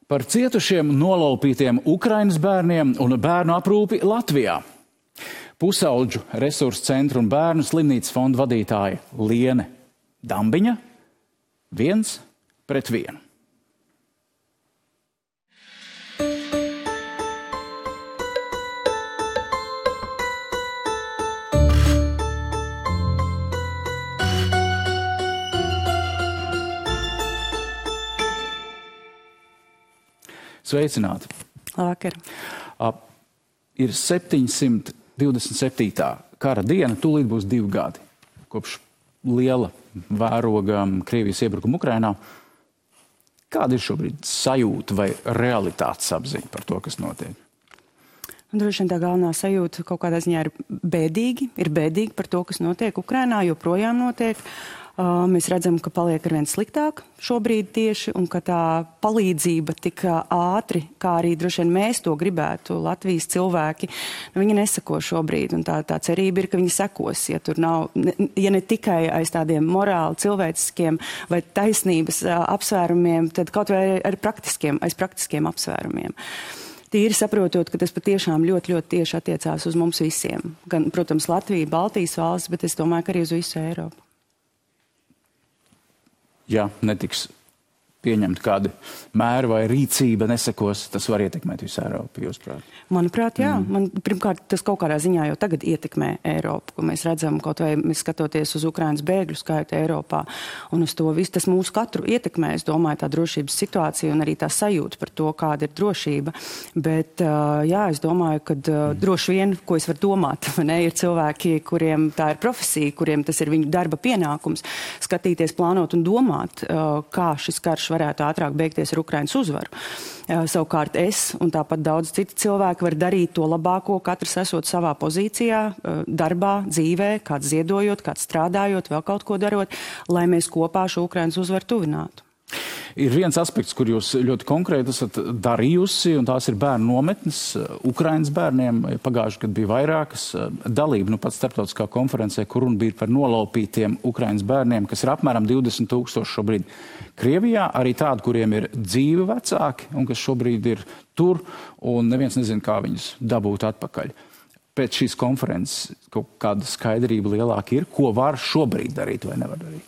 Par cietušiem nolaupītiem Ukrainas bērniem un bērnu aprūpi Latvijā. Pusaudžu resursu centru un bērnu slimnīcas fonda vadītāja Liene Dambiņa 1-1. Sveicināti! Labvakar! Ir 727. kara diena, tūlīt būs 2 gadi, kopš liela vēroga Krievijas iebrukuma Ukrainā. Kāda ir šobrīd sajūta vai realitātes apziņa par to, kas notiek? Droši vien tā galvenā sajūta kaut kādā ziņā ir bēdīgi par to, kas notiek Ukrainā, joprojām notiek. Mēs redzam, ka paliek arvien sliktāk šobrīd tieši, un ka tā palīdzība tik ātri, kā arī droši vien mēs to gribētu, Latvijas cilvēki, viņi neseko šobrīd, un tā cerība ir, ka viņi sekos, ja tur nav, ja ne tikai aiz tādiem morāli, cilvēciskiem vai taisnības apsvērumiem, tad kaut vai aiz praktiskiem apsvērumiem. Tīri saprotot, ka tas patiešām ļoti tieši attiecās uz mums visiem. Gan, protams, Latvija, Baltijas valsts, bet es domāju, ka arī uz visu Eiropu. Ja netiks pieņemt kādi mēri vai rīcība nesekos, tas var ietekmēt visu Eiropu, jūsuprāt? Manuprāt, jā. Pirmkārt, tas kaut kādā ziņā jau tagad ietekmē Eiropu, ko mēs redzam, kaut vai mēs skatoties uz Ukrainas bēgļu skaitu Eiropā, un uz to visu tas mūsu katru ietekmē, es domāju, tā drošības situācija un arī tā sajūta par to, kāda ir drošība. Bet, jā, es domāju, ka droši vien, ko es varu domāt, ne, ir cilvēki, kuriem tā ir profesija, kuriem tas ir viņu darba pienākums, skatīties, plānot un domāt, kā šis karš varētu ātrāk beigties ar Ukrainas uzvaru. Savukārt es un tāpat daudz citi cilvēki var darīt to labāko, katrs esot savā pozīcijā, darbā, dzīvē, kāds ziedojot, kāds strādājot, vēl kaut ko darot, lai mēs kopā šo Ukrainas uzvaru tuvinātu. Ir viens aspekts, kur jūs ļoti konkrēti esat darījusi, un tās ir bērnu nometnes Ukrainas bērniem. Pagājuši gadu bija vairākas dalība, pat starptautiskā konferencē, kur runa bija par nolaupītiem Ukrainas bērniem, kas ir apmēram 20,000 šobrīd Krievijā, arī tādi, kuriem ir dzīvi vecāki, un kas šobrīd ir tur, un neviens nezina, kā viņus dabūt atpakaļ. Pēc šīs konferences kaut kāda skaidrība lielāka ir, ko var šobrīd darīt vai nevar darīt?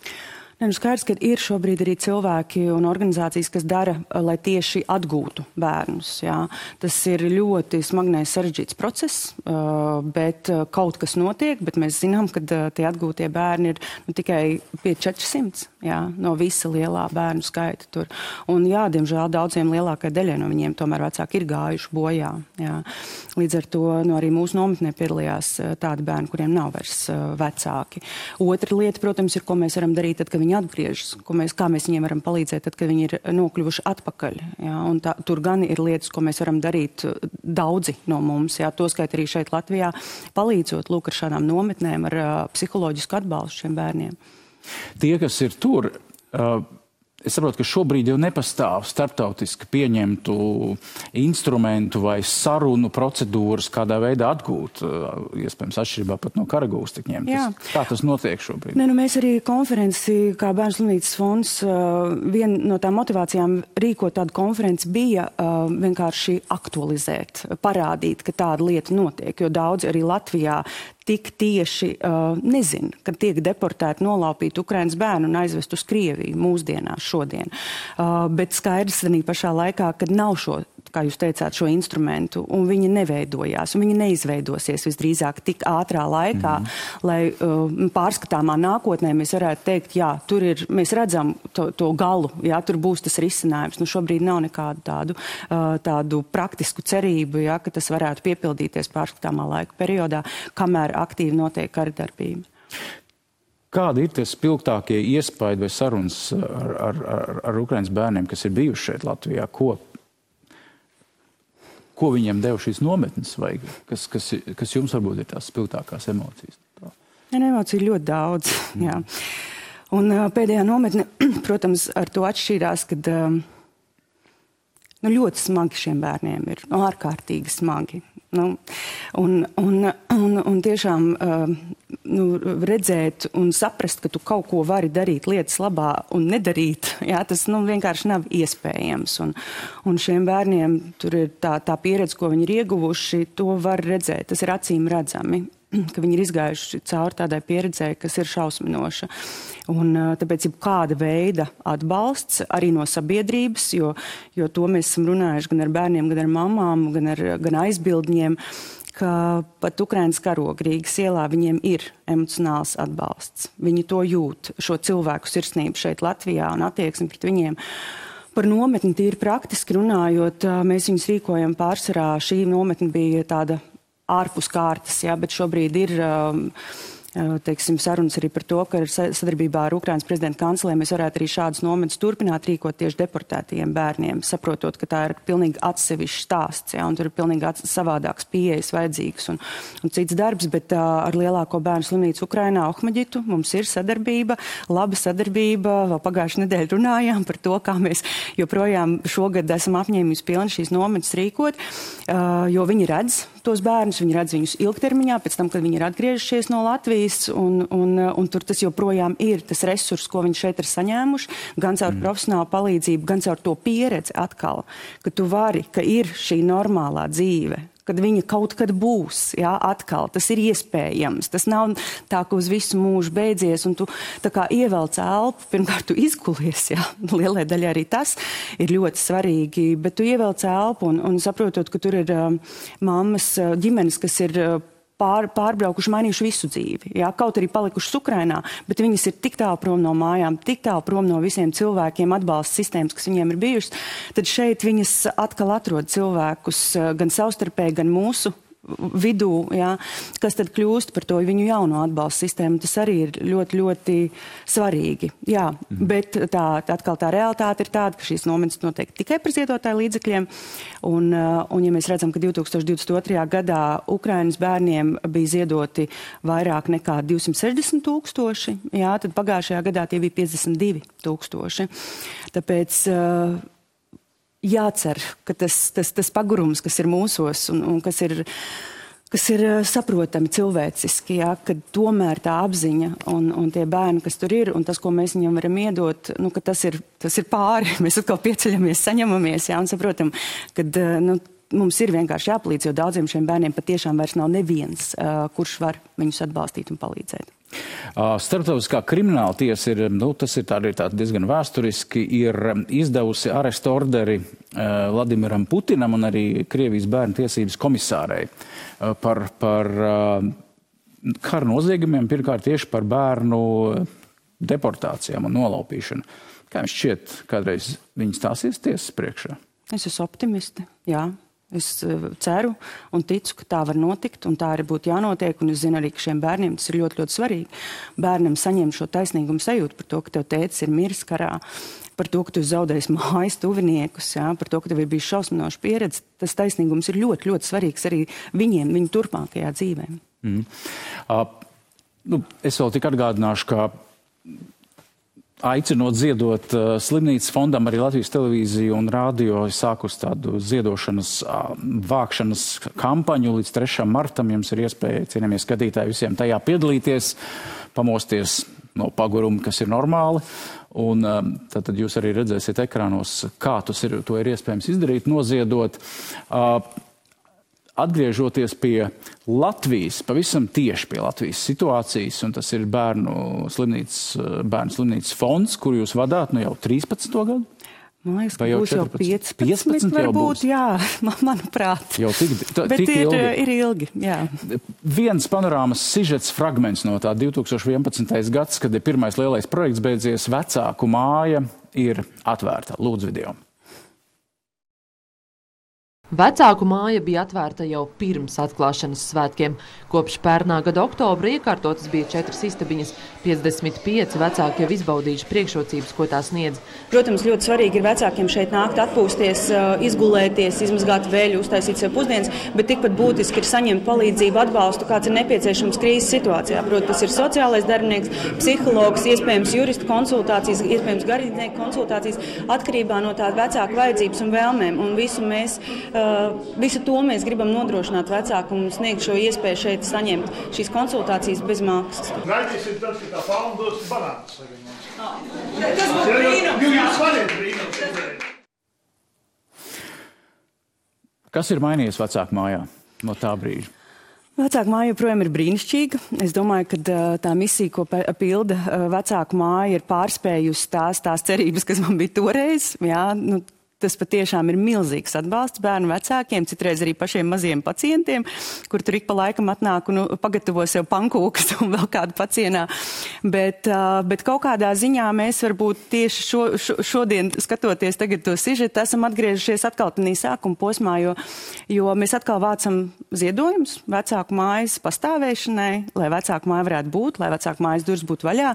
Skaidrs, ka ir šobrīd arī cilvēki un organizācijas, kas dara, lai tieši atgūtu bērnus. Jā. Tas ir ļoti smagnējs sarežģīts process, bet kaut kas notiek, bet mēs zinām, ka tie atgūtie bērni ir tikai pie 400 jā, no visa lielā bērnu skaita tur. Un jā, diemžēl daudziem lielākai daļai no viņiem tomēr vecāki ir gājuši bojā. Jā. Līdz ar to arī mūsu nometnē piedalījās tādi bērni, kuriem nav vairs vecāki. Otra lieta, protams, ir, ko mēs varam darīt, tad, kad viņi atgriežas, kā mēs viņiem varam palīdzēt, tad, kad viņi ir nokļuvuši atpakaļ. Jā, un tur gan ir lietas, ko mēs varam darīt daudzi no mums, jā, toskait arī šeit Latvijā, palīdzot lūk ar šādām nometnēm, ar psiholoģisku atbalstu šiem bērniem. Tie, kas ir tur, es saprotu, ka šobrīd jau nepastāv starptautiski pieņemtu instrumentu vai sarunu procedūras, kādā veidā atgūt, iespējams, atšķirībā pat no karagūstekņiem. Kā tas notiek šobrīd? Mēs arī konferenci, kā Bērnu slimnīcas fonds, viena no tām motivācijām rīkot tādu konferenci bija vienkārši aktualizēt, parādīt, ka tāda lieta notiek, jo daudzi arī Latvijā tik tieši nezin, kad tiek deportēti, nolaupīti Ukrainas bērni un aizvest uz Krieviju mūsdienās šodien. Bet skaidrs arī pašā laikā, kad nav šo, kā jūs teicāt, šo instrumentu, un viņi neveidojās, un viņi neizveidosies visdrīzāk tik ātrā laikā, lai pārskatāmā nākotnē mēs varētu teikt, jā, tur ir, mēs redzam to galu, jā, tur būs tas risinājums. Šobrīd nav nekādu tādu praktisku cerību, jā, ka tas varētu piepildīties pārskatāmā laika periodā, kamēr aktīvi notiek karadarbība. Kādi ir tie spilgtākie iespaidi vai sarunas ar Ukrainas bērniem, kas ir bijuši šeit Latvijā? Ko viņiem deva šīs nometnes, vai kas jums varbūt ir tās spilgtākās emocijas? Emociju ļoti daudz, jā. Un pēdējā nometne, protams, ar to atšķīrās, kad ļoti smagi šiem bērniem ir, ārkārtīgi smagi. Un tiešām redzēt un saprast, ka tu kaut ko vari darīt lietas labā un nedarīt, jā, tas vienkārši nav iespējams. Un šiem bērniem tur ir tā pieredze, ko viņi ir ieguvuši, to var redzēt, tas ir acīm redzami, ka viņi ir izgājuši cauri tādai pieredzē, kas ir šausminoša. Un tāpēc ir kāda veida atbalsts arī no sabiedrības, jo to mēs esam runājuši gan ar bērniem, gan ar mamām, gan aizbildņiem, ka pat Ukrainas karoga Rīgas ielā viņiem ir emocionāls atbalsts. Viņi to jūt, šo cilvēku sirsnību šeit Latvijā un attieksmi pret viņiem. Par nometni tīri praktiski runājot, mēs viņus rīkojam pārsvarā. Šī nometne bija tāda ārpus kārtas, jā, bet šobrīd ir sarunas arī par to, ka sadarbībā ar Ukrainas prezidenta kancelē mēs varētu arī šādas nometnes turpināt rīkot tieši deportētajiem bērniem, saprotot, ka tā ir pilnīgi atsevišķs stāsts, jā, un tur ir pilnīgi savādāks pieejas vajadzīgs un cits darbs, bet ar lielāko bērnu slimnīcu Ukrainā, Ohmaģitu, mums ir sadarbība, laba sadarbība, vēl pagājušajā nedēļā runājām par to, kā mēs joprojām šogad esam apņēmības pilni šīs nometnes rīkot, jo viņi redz tos bērnus, viņi redz viņus ilgtermiņā, pēc tam, kad viņi ir atgriežušies no Latvijas, un tur tas joprojām ir tas resurs, ko viņi šeit ir saņēmuši, gan caur profesionālu palīdzību, gan caur to pieredzi atkal, ka tu vari, ka ir šī normālā dzīve, kad viņa kaut kad būs, jā, atkal, tas ir iespējams. Tas nav tā, ka uz visu mūžu beidzies, un tu tā kā ievelc elpu, pirmkārt tu izgulies, jā, lielai daļai arī tas ir ļoti svarīgi, bet tu ievelc elpu un saprotot, ka tur ir mammas ģimenes, kas ir pārbraukuši, mainījuši visu dzīvi. Jā, kaut arī palikušas Ukrainā, bet viņas ir tik tālu prom no mājām, tik tālu prom no visiem cilvēkiem, atbalsta sistēmas, kas viņiem ir bijušas, tad šeit viņas atkal atrod cilvēkus gan savstarpēji, gan mūsu vidū, jā, kas tad kļūst par to viņu jauno atbalsta sistēmu. Tas arī ir ļoti, ļoti svarīgi. Jā, bet atkal tā realitāte ir tāda, ka šīs nometnes notiek tikai par ziedotāju līdzekļiem. Un ja mēs redzam, ka 2022. gadā Ukrainas bērniem bija ziedoti vairāk nekā 260 000, jā, tad pagājušajā gadā tie bija 52 000. Tāpēc jācer, ka tas pagurums, kas ir mūsos un kas ir saprotami cilvēciski, jā, ka tomēr tā apziņa un tie bērni, kas tur ir, un tas, ko mēs viņam varam iedot, ka tas ir pāri. Mēs atkal pieceļamies, saņemamies, jā, un saprotam, ka mums ir vienkārši jāpalīdz, jo daudziem šiem bērniem patiešām vairs nav neviens, kurš var viņus atbalstīt un palīdzēt. Starptautiskā krimināla tiesa ir, tas ir tā diezgan vēsturiski, ir izdevusi arestu orderi Vladimiram Putinam un arī Krievijas bērnu tiesības komisārei par kara noziegumiem, pirmkārt tieši par bērnu deportācijām un nolaupīšanu. Kā jums šķiet, kādreiz viņi stāsies tiesas priekšā? Es esmu optimisti, jā. Es ceru un ticu, ka tā var notikt, un tā arī būtu jānotiek, un es zinu arī, ka šiem bērniem tas ir ļoti, ļoti svarīgi. Bērnam saņem šo taisnīgumu sajūtu par to, ka tev tētis ir miris karā, par to, ka tu zaudēsi mājas tuviniekus, jā, par to, ka tev ir bijis šausminoša pieredze. Tas taisnīgums ir ļoti, ļoti svarīgs arī viņiem, viņu turpmākajā dzīvē. Es vēl tik atgādināšu, ka aicinot ziedot slimnīcas fondam, arī Latvijas televīzija un rādio sākus tādu ziedošanas vākšanas kampaņu līdz 3. martam. Jums ir iespēja, cienījamie skatītāji, visiem tajā piedalīties, pamosties no paguruma, kas ir normāli. Un tad jūs arī redzēsiet ekrānos, kā to ir iespējams izdarīt, noziedot. Atgriežoties pie Latvijas, pavisam tieši pie Latvijas situācijas, un tas ir bērnu slimnīcas fonds, kur jūs vadāt jau 13. gadu? Man liekas, ka būs jau 15 varbūt, jā, manuprāt. Jau bet ir ilgi, jā. Viens panorāmas sižets fragments no tā 2011. gads, kad ir pirmais lielais projekts beidzies, vecāku māja ir atvērta. Lūdzu video. Vecāku māja bija atvērta jau pirms atklāšanas svētkiem. Kopš pērnā gada oktobra iekārtotas bija 4 istabiņas. 55 vecāki jau izbaudījuši priekšrocības, ko tā sniedz. Protams, ļoti svarīgi ir vecākiem šeit nākt, atpūsties, izgulēties, izmazgāt veļu, uztaisīt sev pusdienas, bet tikpat būtiski ir saņemt palīdzību, atbalstu, kāds ir nepieciešams krīzes situācijā. Protams, tas ir sociālais darbinieks, psihologs, iespējams jurista konsultācijas, iespējams garīdznieku konsultācijas, atkarībā no tā vecāku vajadzības un vēlmēm. Un visu mēs Visu to mēs gribam nodrošināt vecāku un sniegt šo iespēju šeit saņemt šīs konsultācijas bez maksas. Gaidīsim tad, ka tā fauna dos banānus. Tas būtu brīnums. Jūs varat brīnums. Kas ir mainījies vecāku mājā no tā brīža? Vecāku māja joprojām ir brīnišķīga. Es domāju, ka tā misija, ko pilda vecāku māja, ir pārspējusi tās cerības, kas man bija toreiz. Jā, tas patiešām ir milzīgs atbalsts bērnu vecākiem, citreiz arī pašiem maziem pacientiem, kur tur ik pa laikam atnāk un pagatavo sev pankūkas un vēl kādu pacienā. Bet kaut kādā ziņā mēs varbūt tieši šodien, skatoties tagad to sižetu, esam atgriežušies atkal tādā sākuma posmā, jo mēs atkal vācam ziedojumus vecāku mājas pastāvēšanai, lai vecāku māja varētu būt, lai vecāku mājas durvis būtu vaļā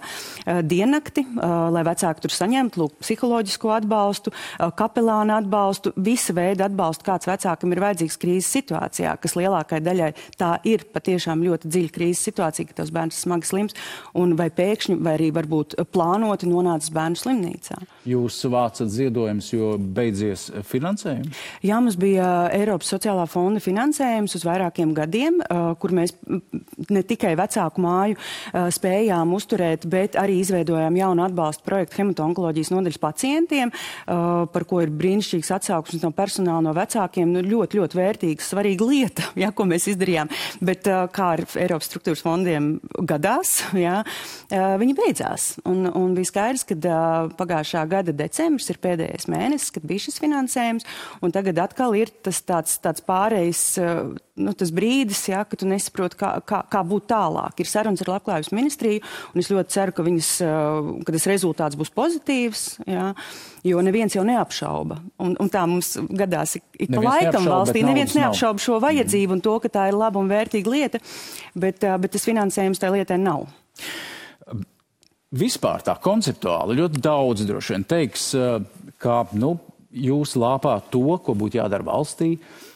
diennakti, lai vecāki tur saņemtu psiholoģisko atbalstu, kapelānu atbalstu, visa veida atbalstu, kāds vecākam ir vajadzīgs krīzes situācijā, kas lielākai daļai tā ir patiešām ļoti dziļa krīzes situācija, ka tavs bērns smagi slims, un vai pēkšņi, vai arī varbūt plānoti nonācis bērnu slimnīcā. Jūs vācat ziedojumus, jo beidzies finansējums? Jā, mums bija Eiropas sociālā fonda finansējums uz vairākiem gadiem, kur mēs ne tikai vecāku māju spējām uzturēt, bet arī izveidojām jaunu atbalstu projektu hematonkoloģijas nodaļas pacientiem, par ko ir brīnišķīgs atsauksmes no personāla, no vecākiem, ļoti, ļoti vērtīga, svarīga lieta, jā, ko mēs izdarījām. Bet kā ar Eiropas struktūras fondiem gadās, jā, viņi beidzās. Un bija skaidrs, ka pagājušā gada decembris ir pēdējais mēnesis, kad bija šis finansējums, un tagad atkal ir tas tāds pārējais, tas brīdis, jā, ka tu nesaproti, kā būt tālāk. Ir sarunas ar Labklājības ministriju, un es ļoti ceru, ka tas rezultāts būs pozitīvs, jā, jo neviens jau neapšauba. Un tā mums gadās ik pa laikam valstī. Neviens neapšauba šo vajadzību un to, ka tā ir laba un vērtīga lieta, bet tas finansējums tai lietai nav. Vispār tā konceptuāli ļoti daudz droši vien teiks, ka jūs lāpāt to, ko būtu jādara valstī,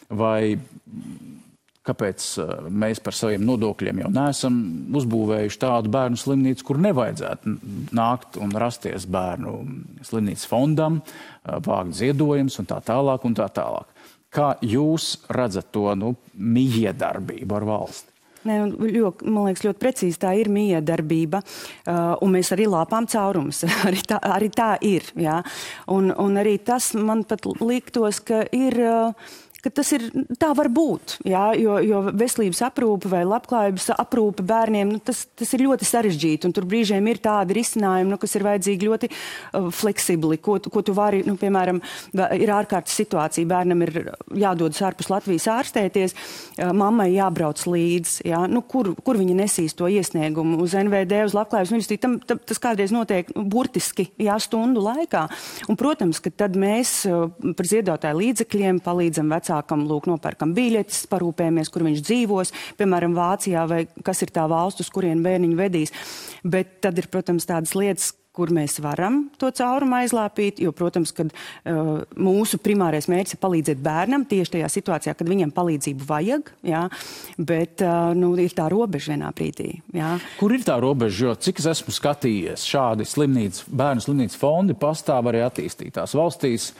vai kāpēc mēs par saviem nodokļiem jau neesam uzbūvējuši tādu bērnu slimnīcu, kur nevajadzētu nākt un rasties bērnu slimnīcas fondam, vākt ziedojumus un tā tālāk un tā tālāk. Kā jūs redzat to mijiedarbību ar valsti? Man liekas, ļoti precīzi tā ir mijiedarbība, un mēs arī lāpām caurumus. arī tā ir. Jā. Un arī tas man pat liktos, ka tas ir, tā var būt, jā, jo veselības aprūpe vai labklājības aprūpe bērniem, tas ir ļoti sarežģīti, un tur brīžiem ir tādi risinājumi, kas ir vajadzīgi ļoti fleksibli, ko tu vari, piemēram, ir ārkārtas situācija, bērnam ir jādodas ārpus Latvijas ārstēties, mammai jābrauc līdz, jā, kur viņi nesīs to iesniegumu uz NVD, uz Labklājības ministriju, tas kādreiz notiek burtiski, jā, stundu laikā, un, protams, ka tad mēs par ziedotāju līdzekļiem palīdzam vecākam, nopērkam biļetes, parūpējamies, kur viņš dzīvos, piemēram, Vācijā, vai kas ir tā valsts, uz kurien bērniņu vedīs. Bet tad ir, protams, tādas lietas, kur mēs varam to caurumu aizlāpīt, jo, protams, kad mūsu primārais mērķis ir palīdzēt bērnam tieši tajā situācijā, kad viņam palīdzību vajag, jā, bet ir tā robeža vienā brīdī. Jā. Kur ir tā robeža, jo cik es esmu skatījies, šādi bērnu slimnīcas fondi pastāv arī attīstītās valstīs.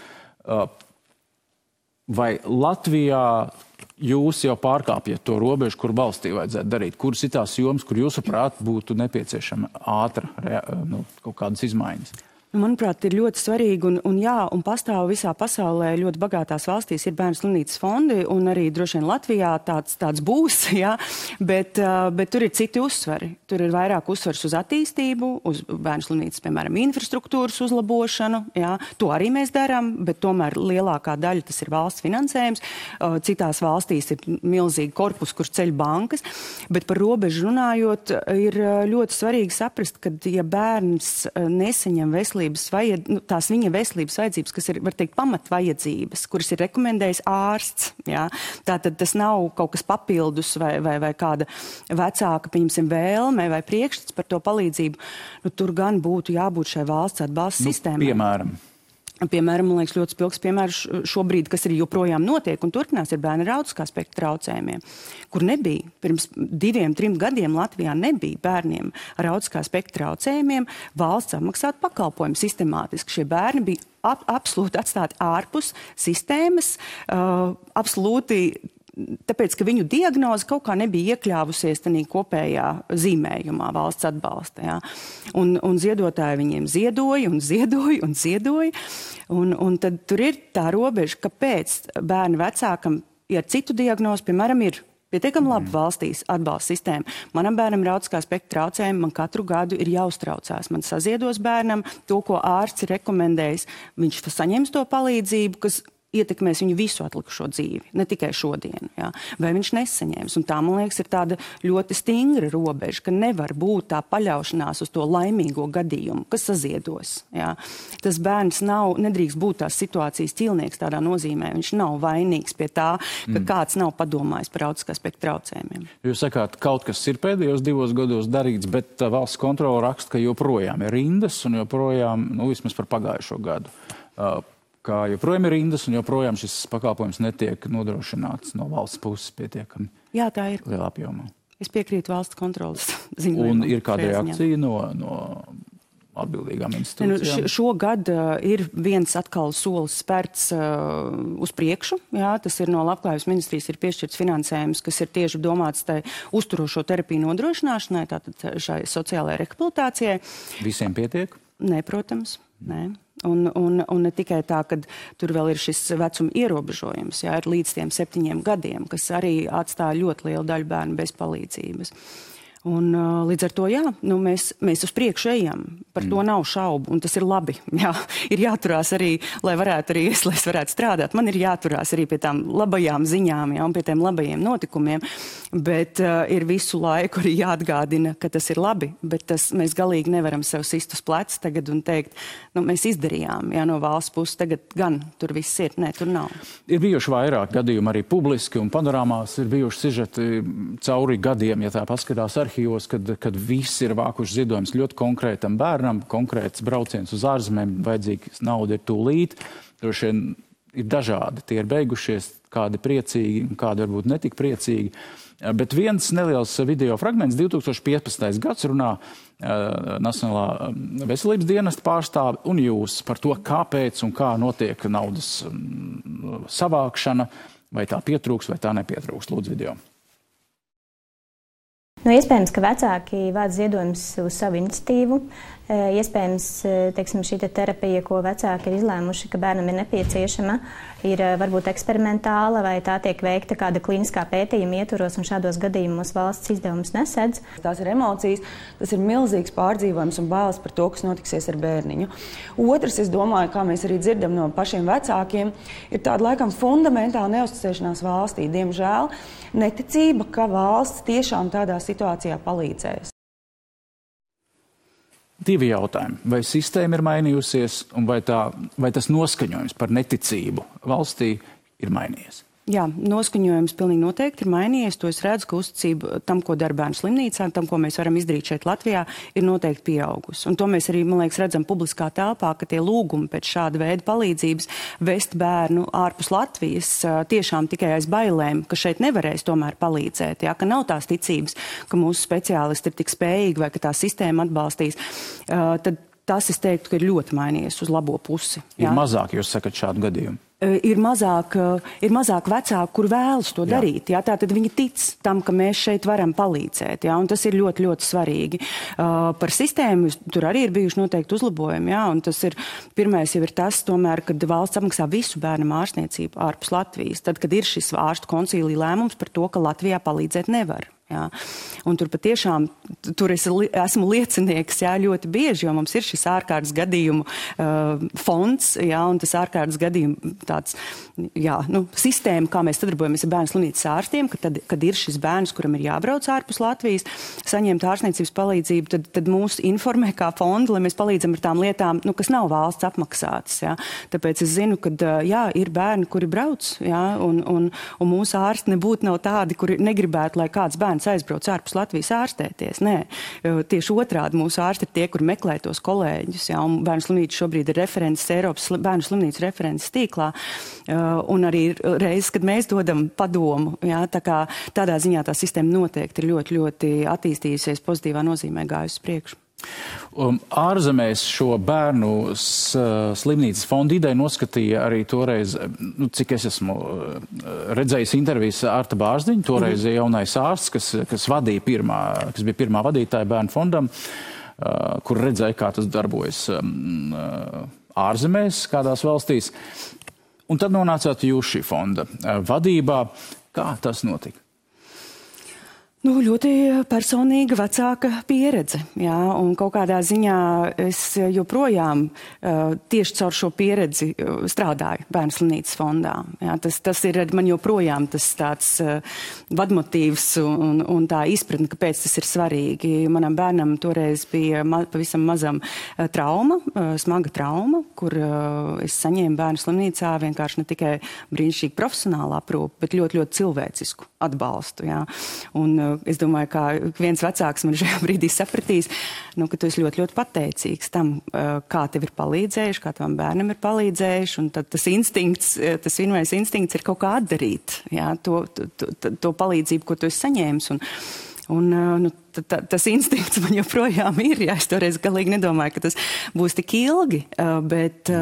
Vai Latvijā jūs jau pārkāpjat to robežu, kur valstī vajadzētu darīt? Kuras ir tās jomas, kur jūsuprāt būtu nepieciešama ātra kaut kādas izmaiņas? Manuprāt, ir ļoti svarīgi un pastāv visā pasaulē ļoti bagātās valstīs ir bērnu slimnīcas fondi, un arī droši vien Latvijā tāds būs, jā, bet tur ir citi uzsvari. Tur ir vairāk uzsvars uz attīstību, uz bērnu slimnīcas, piemēram, infrastruktūras uzlabošanu, jā. To arī mēs darām, bet tomēr lielākā daļa tas ir valsts finansējums. Citās valstīs ir milzīgi korpus, kur ceļ bankas, bet par robežu runājot, ir ļoti svarīgi saprast, ka ja bērns nesaņem tās viņa veselības vajadzības, kas ir, var teikt, pamatvajadzības, kuras ir rekomendējis ārsts. Jā. Tātad tas nav kaut kas papildus vai kāda vecāka, pieņemsim, vēlme vai priekšstats par to palīdzību. Tur gan būtu jābūt šai valsts atbalsta sistēmai. Piemēram? Piemēram, man liekas, ļoti spilgs piemērs šobrīd, kas arī joprojām notiek un turpinās, ir bērni ar autiskā spektra traucējumiem, kur nebija. Pirms 2-3 gadiem Latvijā nebija bērniem ar autiskā spektra traucējumiem valsts apmaksāt pakalpojumu sistemātiski. Šie bērni bija absolūti atstāti ārpus sistēmas, absolūti tāpēc, ka viņu diagnoze kaut kā nebija iekļāvusies tādā kopējā zīmējumā valsts atbalsta. Ja? Un ziedotāji viņiem ziedoja. Un tad tur ir tā robeža, kāpēc bērnu vecākam, ja citu diagnozi, piemēram, ir pietiekami labi valstīs atbalsta sistēma. Manam bērnam ir autiskā spektra traucējumi, man katru gadu ir jāuztraucās. Man saziedos bērnam to, ko ārsts ir rekomendējis. Viņš saņems to palīdzību, kas ietekmēs viņu visu atlikušo dzīvi, ne tikai šodienu. Ja? Vai viņš nesaņems? Un tā, man liekas, ir tāda ļoti stingra robeža, ka nevar būt tā paļaušanās uz to laimīgo gadījumu, kas saziedos. Ja? Tas bērns nedrīkst būt tās situācijas ķilnieks tādā nozīmē. Viņš nav vainīgs pie tā, ka kāds nav padomājis par autiskā spektra traucējumiem. Jūs sakāt, kaut kas ir pēdējos 2 gados darīts, bet valsts kontrole raksta, ka joprojām ir rindas un joprojām, vismaz par pagājušo gadu, kā joprojām ir rindas un joprojām šis pakalpojums netiek nodrošināts no valsts puses pietiekami. Jā, tā ir. Lielā apjomā. Es piekrītu valsts kontrolas ziņojumam. Un ir kāda reakcija no atbildīgām institūcijām? Šogad ir viens atkal solis spērts uz priekšu. Jā, tas ir no Labklājības ministrijas ir piešķirts finansējums, kas ir tieši domāts tai uzturošo terapiju nodrošināšanai, tātad šai sociālajai rehabilitācijai. Visiem pietiek? Nē, protams, nē. Un ne tikai tā, ka tur vēl ir šis vecuma ierobežojums, jā, ir līdz tiem 7 gadiem, kas arī atstāja ļoti lielu daļu bērnu bez palīdzības. Un līdz ar to, jā, mēs uz priekšu ejam. Par to nav šaubu, un tas ir labi. Jā, ir jāturās arī, lai es varētu strādāt. Man ir jāturās arī pie tām labajām ziņām, jā, un pie tiem labajiem notikumiem. Bet ir visu laiku arī jāatgādina, ka tas ir labi. Bet mēs galīgi nevaram sev sist uz pleca tagad un teikt, mēs izdarījām, jā, no valsts puses. Tagad gan tur viss ir. Nē, tur nav. Ir bijuši vairāk gadījumi arī publiski un panorāmās. Ir bijuši sižeti cauri gadiem, ja tā paskatās arhīvos, kad visi ir vākuši ziedojumus ļoti konkrētam bērnam, konkrēts brauciens uz ārzemēm, vajadzīgs nauda ir tūlīt. Droši vien ir dažādi. Tie ir beigušies, kādi priecīgi, kādi varbūt netik priecīgi. Bet viens neliels video fragments, 2015. gads runā Nacionālā veselības dienesta pārstāve un jūs par to, kāpēc un kā notiek naudas savākšana, vai tā pietrūks, vai tā nepietrūks. Lūdzu video. Iespējams, ka vecāki vāc ziedojumus uz savu iniciatīvu. Iespējams, teiksim, šī terapija, ko vecāki ir izlēmuši, ka bērnam ir nepieciešama, ir varbūt eksperimentāla vai tā tiek veikta kāda klīniskā pētījuma ietvaros un šādos gadījumos valsts izdevumus nesedz. Tās ir emocijas, tas ir milzīgs pārdzīvojums un bailes par to, kas notiksies ar bērniņu. Otrs, es domāju, kā mēs arī dzirdam no pašiem vecākiem, ir tāda laikam fundamentāla neuzticēšanās valstī. Diemžēl neticība, ka valsts tiešām tādā situācijā palīdzēs. 2 jautājumi. Vai sistēma ir mainījusies un vai tas noskaņojums par neticību valstī ir mainījies? Jā, noskaņojums pilnīgi noteikti ir mainījies. To es redzu, ka uzticība tam, ko dara bērnu slimnīcā, tam, ko mēs varam izdarīt šeit Latvijā, ir noteikti pieaugusi. Un to mēs arī, man liekas, redzam publiskā telpā, ka tie lūgumi pēc šāda veida palīdzības vest bērnu ārpus Latvijas tiešām tikai aiz bailēm, ka šeit nevarēs tomēr palīdzēt, jā, ka nav tās ticības, ka mūsu speciālisti ir tik spējīgi vai ka tā sistēma atbalstīs. Tad tas, es teiktu, ka ir ļoti mainījies uz labo pusi. Jā. Ir mazāk, jūs sakat, šādu gadījumu? Ir mazāk vecāku, kur vēlas to darīt. Jā, tātad viņi tic tam, ka mēs šeit varam palīdzēt. Jā, un tas ir ļoti, ļoti svarīgi. Par sistēmu tur arī ir bijuši noteikti uzlabojumi. Jā, un tas ir, pirmais jau ir tas, tomēr, kad valsts apmaksā visu bērnam ārstniecību ārpus Latvijas. Tad, kad ir šis ārstu koncīlija lēmums par to, ka Latvijā palīdzēt nevar. Jā. Un tur patiešām, tur es esmu liecinieks, jā, ļoti bieži, jo mums ir šis ārkārtas gadījumu fonds, jā, un tas ārkārtas gadījumu tāds, jā, sistēma, kā mēs sadarbojamies ar bērnu slimnīcas ārstiem, kad ir šis bērns, kuram ir jābrauc ārpus Latvijas, saņemt ārstniecības palīdzību, tad mūs informē kā fondu, lai mēs palīdzam ar tām lietām, kas nav valsts apmaksātas, jā. Tāpēc es zinu, ka, jā, ir bērni, kuri brauc, jā, un mūsu ārsti nebūtu nav tādi, kuri negribētu, lai kāds bērns bērns aizbrauc ārpus Latvijas ārstēties. Nē, tieši otrādi mūsu ārsti ir tie, kur meklē tos kolēģus. Jā, un Bērnu slimnīca šobrīd ir referents Eiropas bērnu slimnīcu referents tīklā. Un arī reizes, kad mēs dodam padomu, jā, tā kā tādā ziņā tā sistēma noteikti ir ļoti, ļoti attīstījusies pozitīvā nozīmē gājusi priekšu. Ārzemēs šo bērnu slimnīcas fonda ideju noskatīja arī toreiz, cik es esmu redzējis intervijas Arta Bārzdiņa, toreiz jaunais ārsts, kas bija pirmā vadītāja bērnu fondam, kur redzēja, kā tas darbojas ārzemēs, kādās valstīs. Un tad nonācāt jūs šī fonda vadībā. Kā tas notika? Ļoti personīga vecāka pieredze, jā, un kaut kādā ziņā es joprojām tieši caur šo pieredzi strādāju Bērnu slimnīcas fondā. Jā, tas ir man joprojām tas tāds vadmotīvs un tā izpratne, kāpēc tas ir svarīgi. Manam bērnam toreiz bija pavisam mazam trauma, smaga trauma, kur es saņēmu Bērnu slimnīcā vienkārši ne tikai brīnišķīgi profesionālu aprūpi, bet ļoti, ļoti cilvēcisku atbalstu. Jā. Un es domāju, ka viens vecāks man šajā brīdī sapratīs, ka tu esi ļoti, ļoti pateicīgs tam, kā tev ir palīdzējuši, kā tavam bērnam ir palīdzējuši, un tad tas instinkts, tas vienmēr instinkts ir kaut kā atdarīt, jā, to palīdzību, ko tu esi saņēmis. Tas instinkts man joprojām ir, jā, es toreiz galīgi nedomāju, ka tas būs tik ilgi, bet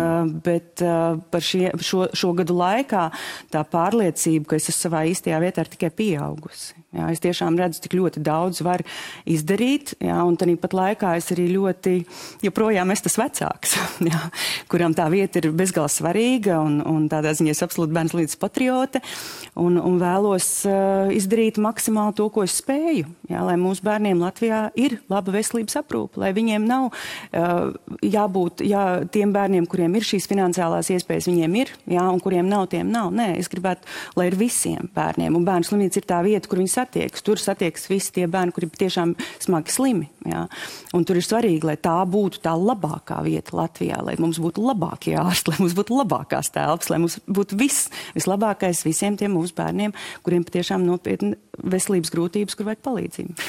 par šo gadu laikā tā pārliecība, ka es esmu savā īstajā vietā ir tikai pieaugusi. Jā, es tiešām redzu, tik ļoti daudz var izdarīt, jā, un tāpat laikā es arī joprojām es tas vecāks, jā, kuram tā vieta ir bezgalīgi svarīga, un tādā ziņā es absolūti Bērnu slimnīcas patriote, un vēlos izdarīt maksimāli to, ko es spēju, jā, lai mūsu bērniem Latvijā ir laba veselības aprūpe, lai viņiem nav jābūt, tiem bērniem, kuriem ir šīs finansiālās iespējas, viņiem ir, jā, un kuriem nav, tiem nav. Nē, es gribētu, lai ir visiem bērniem, un Bērnu slimnīca ir tā vieta, kur viņi satiekas. Tur satiekas visi tie bērni, kuri tiešām smagi slimi. Jā. Un tur ir svarīgi, lai tā būtu tā labākā vieta Latvijā, lai mums būtu labākie ārsti, lai mums būtu labākās telpas, lai mums būtu vislabākais visiem tiem mūsu bērniem, kuriem patiešām nopietni veselības grūtības, kur vajag palīdzību.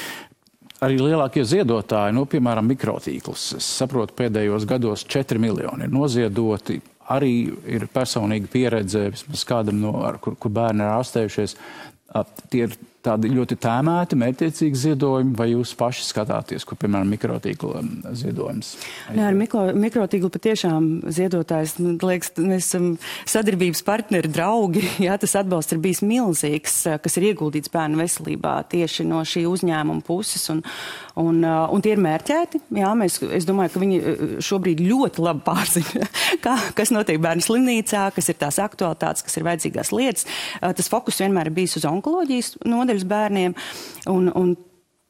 Arī lielākie ziedotāji, piemēram, mikrotīklus. Es saprotu, pēdējos gados 4 miljoni ir noziedoti. Arī ir personīga pieredze, vismaz kādam, kur bērni ir ārstējušies. Tie ir tādi ļoti tēmēti, mērķiecīgi ziedojumi, vai jūs paši skatāties, kur, piemēram, mikrotīkla ziedojums? Nē, ar mikrotīklu patiešām ziedotājs, liekas, mēs esam sadarbības partneri, draugi, jā, tas atbalsts ir bijis milzīgs, kas ir ieguldīts bērnu veselībā tieši no šī uzņēmuma puses, un tie ir mērķēti, jā, es domāju, ka viņi šobrīd ļoti labi pārzina, kas notiek Bērnu slimnīcā, kas ir tās aktualitātes, kas ir vajadzīgās lietas. Tas fokus vienmēr ir bijis uz onkoloģijas nodaļas bērniem, un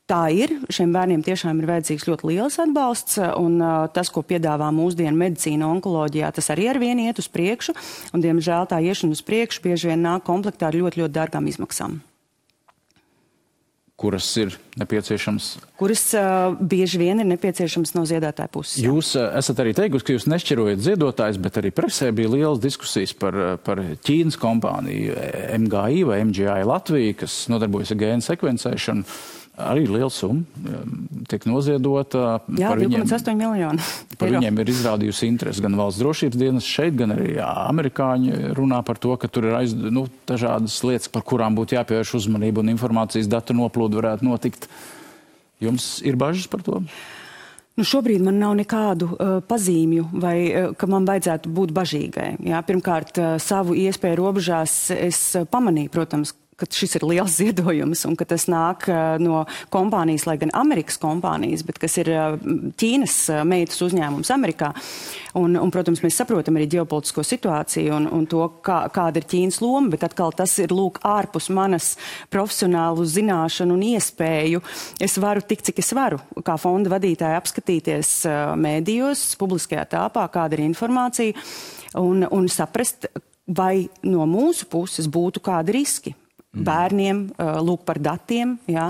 tā ir. Šiem bērniem tiešām ir vajadzīgs ļoti liels atbalsts, un tas, ko piedāvā mūsdienu medicīna onkoloģijā, tas arī ar vienu iet uz priekšu, un, diemžēl, tā iešana uz priekšu bieži vien nāk komplektā ar ļoti, ļoti dārgām izmaksām. Kuras ir nepieciešams? Kuras bieži vien ir nepieciešams no ziedātāja puses. Jā. Jūs esat arī teikusi, ka jūs nešķirojat ziedotājs, bet arī presē bija lielas diskusijas par Ķīnas kompāniju MGI vai MGI Latvija, kas nodarbojas ar gēnu sekvencēšanu. Arī liela summa tiek noziedota. Jā, 2,8 miljoni. Par viņiem ir izrādījusi interesi gan valsts drošības dienas šeit, gan arī amerikāņi runā par to, ka tur ir dažādas lietas, par kurām būtu jāpievērš uzmanība un informācijas datu noplūde varētu notikt. Jums ir bažas par to? Šobrīd man nav nekādu pazīmju, vai ka man vajadzētu būt bažīgai. Jā, pirmkārt, savu iespēju robežās es pamanīju, protams, ka šis ir liels ziedojums un ka tas nāk no kompānijas, lai gan Amerikas kompānijas, bet kas ir Ķīnas meitas uzņēmums Amerikā. Un, protams, mēs saprotam arī ģeopolitisko situāciju un to, kāda ir Ķīnas loma, bet atkal tas ir ārpus manas profesionālu zināšanu un iespēju. Es varu tik, cik es varu, kā fonda vadītāja apskatīties mēdījos, publiskajā telpā, kāda ir informācija un saprast, vai no mūsu puses būtu kādi riski. bērniem, lūk par datiem, jā,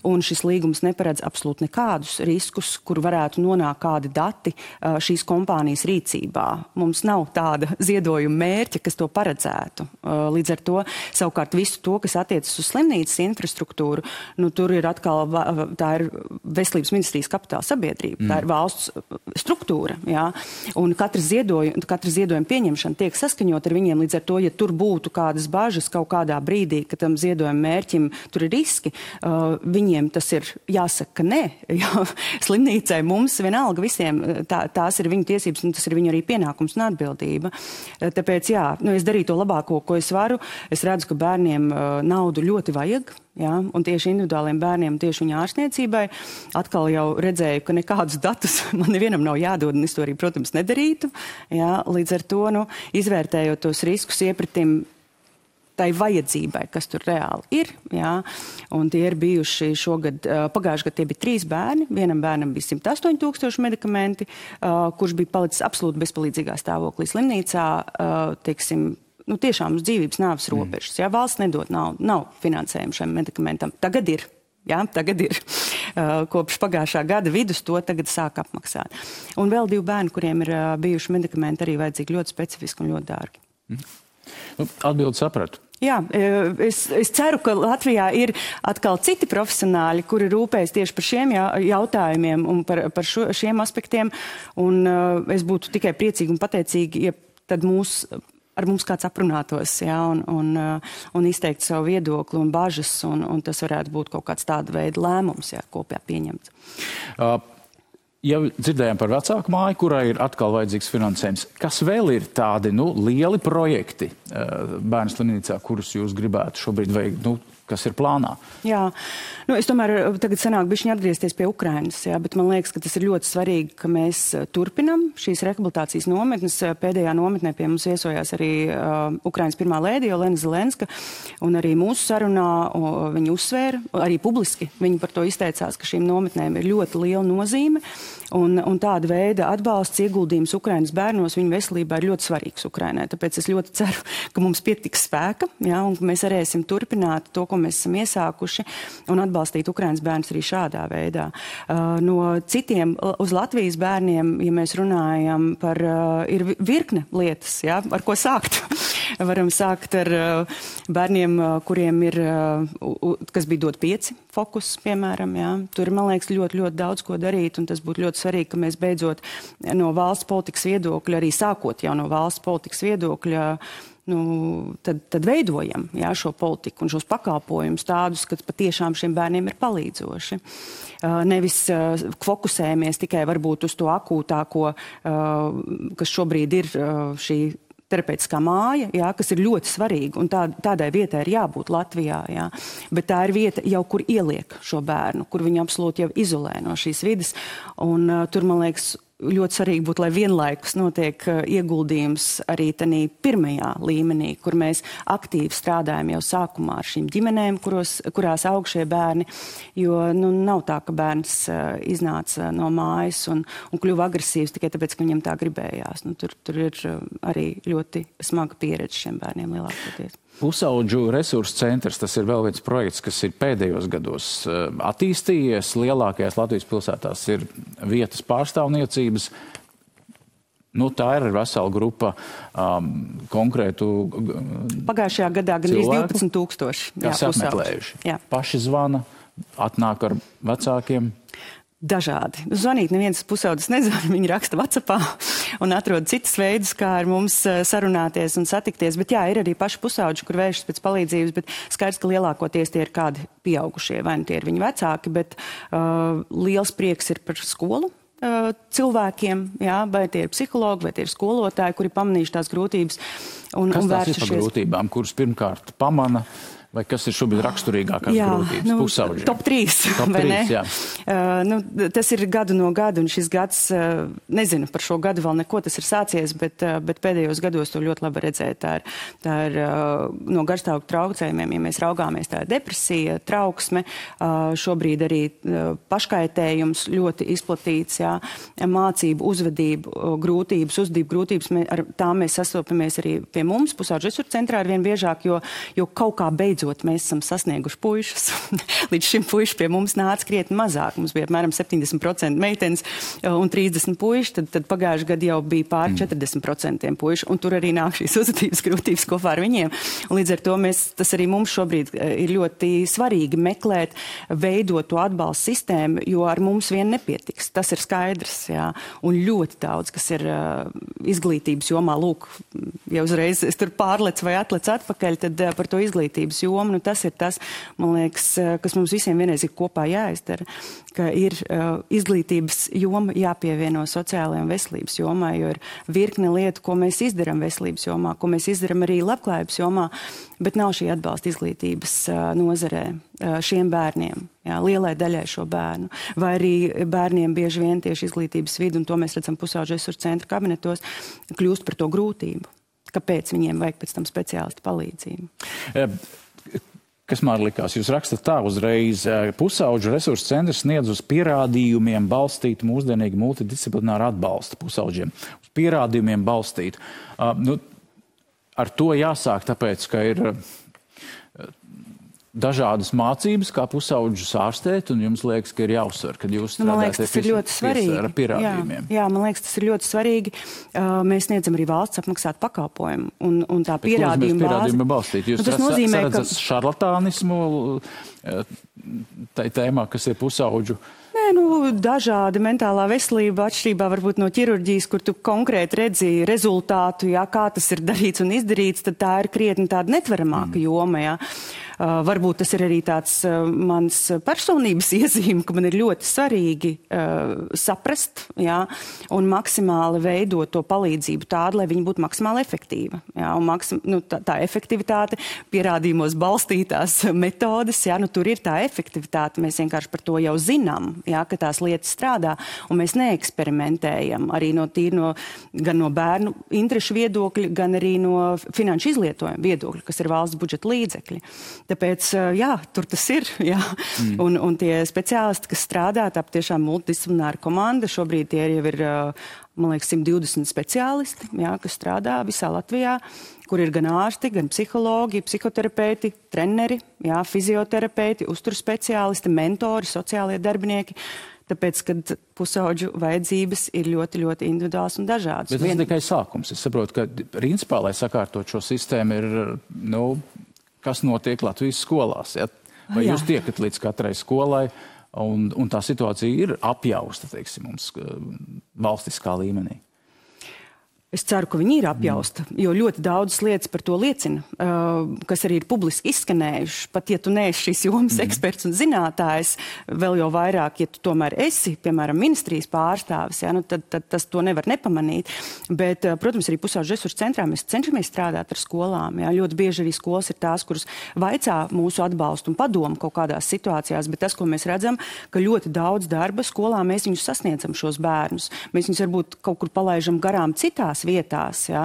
un šis līgums neparedz absolūti nekādus riskus, kur varētu nonākt kādi dati šīs kompānijas rīcībā. Mums nav tāda ziedojuma mērķa, kas to paredzētu. Līdz ar to, savukārt visu to, kas attiecas uz slimnīcas infrastruktūru, nu, tur ir atkal, tā ir Veselības ministrijas kapitāla sabiedrība, tā ir valsts struktūra, jā, un katra ziedojuma pieņemšana tiek saskaņot ar viņiem, līdz ar to, ja tur būtu kādas bažas kaut kādā brīdī, ka tam ziedojuma mērķim tur ir riski, viņiem tas ir jāsaka nē, jo slimnīcai mums vienalga visiem, tās ir viņu tiesības un tas ir viņu arī pienākums un atbildība. Tāpēc, jā, nu, es darīju to labāko, ko es varu. Es redzu, ka bērniem naudu ļoti vajag, jā, un tieši individuāliem bērniem, tieši viņa ārstniecībai. Atkal jau redzēju, ka nekādus datus man nevienam nav jādod, un es to arī, protams, nedarītu. Jā, līdz ar to, nu, izvērtējot tos riskus, iepratim tai vajadzībai, kas tur reāli ir, jā, un tie ir bijuši šogad, pagājuši gadu tie bija 3 bērni, vienam bērnam bija 108 000 medikamenti, kurš bija palicis absolūti bezpalīdzīgā stāvoklī slimnīcā, teiksim, nu tiešām uz dzīvības nāves robežas, jā, valsts nedod nav finansējumu šiem medikamentam, tagad ir. Jā, tagad ir. Kopš pagājušā gada vidus to tagad sāk apmaksāt. Un vēl 2 bērni, kuriem ir bijuši medikamenti, arī vajadzīgi ļoti specifiski un ļoti dārgi. Nu, atbildi sapratu. Jā, es ceru, ka Latvijā ir atkal citi profesionāļi, kuri rūpējas tieši par šiem jautājumiem un par šiem aspektiem. Un es būtu tikai priecīgi un pateicīgi, ja tad ar mums kāds aprunātos, jā, un izteikt savu viedokli un bažas, un tas varētu būt kaut kāds tāda veida lēmums, jā, kopā pieņemts. Ja dzirdējām par vecāku māju, kurai ir atkal vajadzīgs finansējums, kas vēl ir tādi, nu, lieli projekti bērnu slimnīcā, kurus jūs gribētu šobrīd veikt, nu, kas ir plānā? Jā, nu, es tomēr tagad sanāk bišķiņ atgriezties pie Ukrainas, jā, bet man liekas, ka tas ir ļoti svarīgi, ka mēs turpinam šīs rehabilitācijas nometnes. Pēdējā nometnē pie mums viesojās arī Ukrainas pirmā lēdija Olena Zelenska, un arī mūsu sarunā viņa uzsvēra, arī publiski viņa par to izteicās, ka šīm nometnēm ir ļoti liela nozīme, un tāda veida atbalsts ieguldījums Ukrainas bērnos viņu veselībā ir ļoti svarīgs Ukrainai. Tāpēc es ļoti ceru, ka mums pietiks spēka, jā, un ka mēs varēsim turpināt to, ko mēs esam iesākuši, un atbalstīt Ukrainas bērnus arī šādā veidā. No citiem uz Latvijas bērniem, ja mēs runājam par, ir virkne lietas, jā, ar ko sākt. Varam sākt ar bērniem, kuriem ir, kas bija dot 5 fokus, piemēram, jā. Tur, man liekas, ļoti, ļoti daudz ko darīt, un tas būtu ļoti svarīgi, ka mēs beidzot no valsts politikas viedokļa, arī sākot jau no valsts politikas viedokļa, nu, tad veidojam, jā, šo politiku un šos pakalpojumus tādus, ka patiešām šiem bērniem ir palīdzoši. Nevis fokusējamies tikai varbūt uz to akūtāko, kas šobrīd ir šī terapeitiskā māja, jā, kas ir ļoti svarīga, un tādai vietai ir jābūt Latvijā, jā. Bet tā ir vieta jau, kur ieliek šo bērnu, kur viņu absolūti jau izolē no šīs vides, un tur, man liekas, ļoti svarīgi būtu, lai vienlaikus notiek ieguldījums arī tanī pirmajā līmenī, kur mēs aktīvi strādājam jau sākumā ar šīm ģimenēm, kurās aug šie bērni, jo, nu, nav tā, ka bērns iznāca no mājas un kļuva agresīvs tikai tāpēc, ka viņam tā gribējās. Nu, tur ir arī ļoti smaga pieredze šiem bērniem lielākoties. Pusaudžu resursu centrs, tas ir vēl viens projekts, kas ir pēdējos gados attīstījies. Lielākajās Latvijas pilsētās ir vietas pārstāvniecības. Nu, tā ir vesela grupa konkrētu Pagājušajā gadā gan 12 000. Kas apmeklējuši. Jā. Paši zvana, atnāk ar vecākiem. Dažādi. Zvanīt neviens pusaudzis nezvana, viņi raksta WhatsAppā un atrod citas veidus, kā ar mums sarunāties un satikties. Bet jā, ir arī paši pusauģi, kur vēršas pēc palīdzības, bet skaidrs, ka lielākoties tie ir kādi pieaugušie, vai nu tie ir viņu vecāki, bet liels prieks ir par skolu cilvēkiem, jā, vai tie ir psihologi, vai tie ir skolotāji, kuri pamanījuši tās grūtības un Kas tās vēršušies. Ir par grūtībām, kuras pirmkārt pamana? Vai kas ir šobrīd raksturīgākās grūtības? Nu, pusauģiem? Top 3, vai ne? Jā. Nu, tas ir gadu no gada, un šis gads, nezinu par šo gadu vēl neko, tas ir sācies, bet pēdējos gados to ļoti labi redzēt. Tā ir no garstāvokļa traucējumiem, ja mēs raugāmies, tā ir depresija, trauksme, šobrīd arī paškaitējums ļoti izplatīts, jā, mācību, uzvedību grūtības, ar tām mēs sastopamies arī pie mums, pusauģu resursu centrā ar vien biežāk, jo kaut kā beidzot beidzot mēs esam sasnieguši puišus. Līdz šim puiši pie mums nāca krietni mazāk. Mums bija apmēram 70% meitenes un 30 puiši, tad pagājuši gadu jau bija pār 40% puiši, un tur arī nāk šīs uzvedības grūtības kopā ar viņiem. Un līdz ar to tas arī mums šobrīd ir ļoti svarīgi meklēt, veidot to atbalstu sistēmu, jo ar mums vien nepietiks. Tas ir skaidrs, jā. Un ļoti daudz, kas ir izglītības jomā, lūk, ja uzreiz es tur pārlec vai atlec atpakaļ, tad par to izglītības jomu, nu tas ir tas, man liekas, kas mums visiem vienreiz ir kopā jāizdara, ka ir izglītības joma jāpievieno sociālajai un veselības jomā, jo ir virkne lietu, ko mēs izdaram veselības jomā, ko mēs izdaram arī labklājības jomā, bet nav šī atbalsta izglītības nozarē šiem bērniem, jā, lielai daļai šo bērnu, vai arī bērniem bieži vien tieši izglītības vidu, un to mēs redzam pusauģu resursu centra kabinetos, kļūst par to grūtību. Kāpēc viņiem vajag pēc tam speciālistu palīdzību? Kas man likās? Jūs rakstat tā uzreiz, pusauģu resursu centrs sniedz uz pierādījumiem balstītu mūsdienīgu multidisciplināru atbalstu pusauģiem. Uz pierādījumiem balstītu. Ar to jāsāk, tāpēc, ka ir dažādas mācības, kā pusauģus ārstēt, un jums liekas, ka ir jāuzsver, kad jūs strādājat ar pierādījumiem. Jā, man liekas, tas ir ļoti svarīgi. Mēs sniedzam arī valsts apmaksātu pakalpojumu, un tā pierādījuma bāze. Jūs redzat šarlatānismu tai tēmā, kas ir pusauģu? Nē, dažādi mentālā veselība atšķirībā varbūt no ķirurģijas, kur tu konkrēti redzi rezultātu, jā, kā tas ir darīts un izdarīts, tad tā ir krietni tāda netveramāka joma, jā. Varbūt tas ir arī tāds mans personības iezīme, ka man ir ļoti svarīgi saprast, jā, un maksimāli veidot to palīdzību tādu, lai viņi būtu maksimāli efektīva. Jā, un tā efektivitāte, pierādījumos balstītās metodes, jā, tur ir tā efektivitāte, mēs vienkārši par to jau zinām, jā, ka tās lietas strādā, un mēs neeksperimentējam arī gan no bērnu interešu viedokļa, gan arī no finanšu izlietojuma viedokļa, kas ir valsts budžeta līdzekļi. Tāpēc, jā, tur tas ir, jā. Un tie speciālisti, kas strādā, tā tiešām multidisciplināra komanda, šobrīd tie jau ir, man liekas, 120 speciālisti, jā, kas strādā visā Latvijā, kur ir gan ārsti, gan psihologi, psihoterapeiti, treneri, jā, fizioterapeiti, uzturspeciālisti, mentori, sociālie darbinieki. Tāpēc, kad pusauģu vajadzības ir ļoti, ļoti individuāls un dažādas. Bet tas ir tikai sākums. Es saprotu, ka principā, lai sakārtot šo sistēmu, ir, kas notiek Latvijas skolās. Ja? Vai jūs tiekat līdz katrai skolai, un tā situācija ir apjausta, teiksim, mums valstiskā līmenī? Es ceru, ka viņi ir apjausta, jo ļoti daudzas lietas par to liecina, kas arī ir publiski izskanējuši. Pat ja tu neesi šīs jomas eksperts un zinātājs, vēl jau vairāk, ja tu tomēr esi, piemēram, ministrijas pārstāvis, ja, tad tas to nevar nepamanīt. Bet, protams, arī pusauģu resursu centrā mēs cenšamies strādāt ar skolām. Ja. Ļoti bieži arī skolas ir tās, kuras vaicā mūsu atbalstu un padomu kaut kādās situācijās, bet tas, ko mēs redzam, ka ļoti daudz darba skolā mēs viņus sasniedzam šos bērnus. Mēs viņus varbūt kaut kur palaižam garām citās vietās, ja?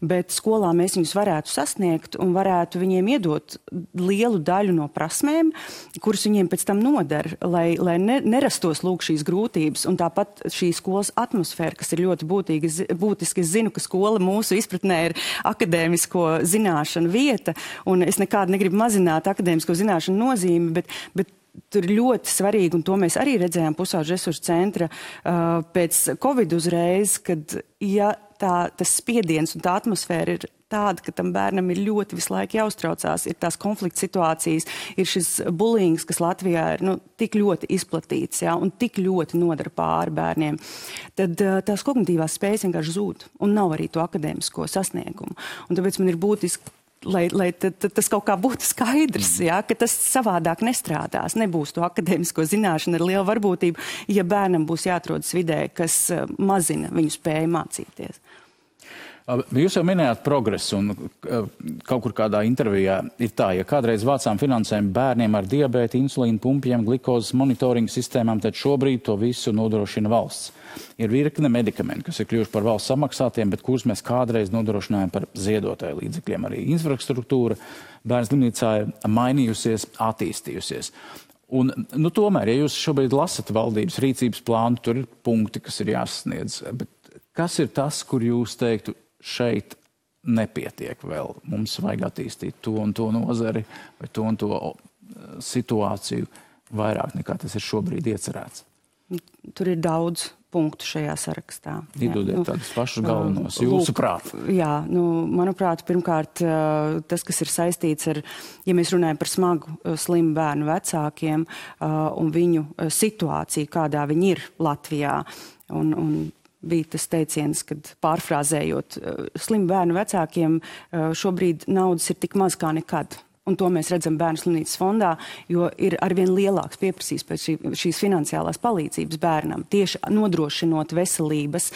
Bet skolā mēs viņus varētu sasniegt un varētu viņiem iedot lielu daļu no prasmēm, kuras viņiem pēc tam nodara, lai nerastos lūk šīs grūtības. Un tāpat šī skolas atmosfēra, kas ir ļoti būtiski. Es zinu, ka skola mūsu izpratnē ir akadēmisko zināšanu vieta, un es nekādu negribu mazināt akadēmisko zināšanu nozīmi, bet tur ir ļoti svarīgi, un to mēs arī redzējām pusauģu resursu centra pēc Covid uzreiz, kad ja tas spiediens un tā atmosfēra ir tāda, ka tam bērnam ir ļoti visu laiku jāuztraucās, ir tās konflikta situācijas, ir šis bullyings, kas Latvijā ir tik ļoti izplatīts, ja, un tik ļoti nodara pāri bērniem, tad tās kognitīvās spējas vienkārši zūd, un nav arī to akadēmisko sasniegumu. Un tāpēc man ir būtiski, lai tas kaut kā būtu skaidrs, ja, ka tas savādāk nestrādās, nebūs to akadēmisko zināšanu ar lielu varbūtību, ja bērnam būs jāatrodas vidē, kas mazina viņu spēju mācīties. Jūs jau minējāt progresu, un kaut kur kādā intervijā ir tā, ja kādreiz vācām finansējumu bērniem ar diabētu, insulīnu pumpiem, glikozes monitoringa sistēmām, tad šobrīd to visu nodrošina valsts. Ir virkne medikamenti, kas ir kļuvuši par valsts samaksātiem, bet kurus mēs kādreiz nodrošinājām par ziedotāju līdzekļiem. Arī infrastruktūra bērnu slimnīcā ir mainījusies, attīstījusies. Un, tomēr, ja jūs šobrīd lasat valdības rīcības plānu, tur ir punkti, kas ir jāsasniedz. Bet kas ir tas, kur jūs teiktu, šeit nepietiek vēl. Mums vajag attīstīt to un to nozari vai to un to situāciju vairāk nekā tas ir šobrīd iecerēts. Tur ir daudz punktu šajā sarakstā. Iedodiet tādus pašus galvenos, jūsu prāt. Jā, manuprāt, pirmkārt, tas, kas ir saistīts ar, ja mēs runājam par smagu slimu bērnu vecākiem un viņu situāciju, kādā viņi ir Latvijā, un bija tas teiciens, kad pārfrāzējot, slimu bērnu vecākiem šobrīd naudas ir tik maz kā nekad. Un to mēs redzam Bērnu slimnīcas fondā, jo ir arvien lielāks pieprasījums pēc šīs finansiālās palīdzības bērnam, tieši nodrošinot veselības,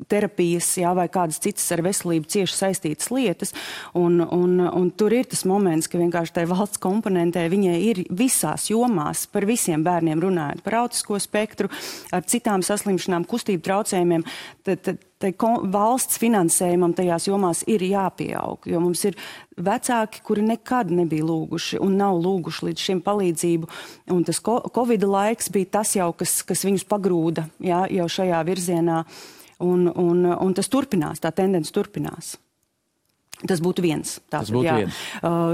terapijas, vai kādas citas ar veselību cieši saistītas lietas. Un tur ir tas moments, ka vienkārši tai valsts komponentē viņai ir visās jomās par visiem bērniem runājot, par autisko spektru, ar citām saslimšanām, kustību traucējumiem. Tai valsts finansējumam tajās jomās ir jāpieaug, jo mums ir vecāki, kuri nekad nebija lūguši un nav lūguši līdz šim palīdzību. Un tas Covid laiks bija tas jau, kas viņus pagrūda, jau šajā virzienā. Un tas turpinās, tā tendence turpinās. Tas būtu viens. Tas būtu viens.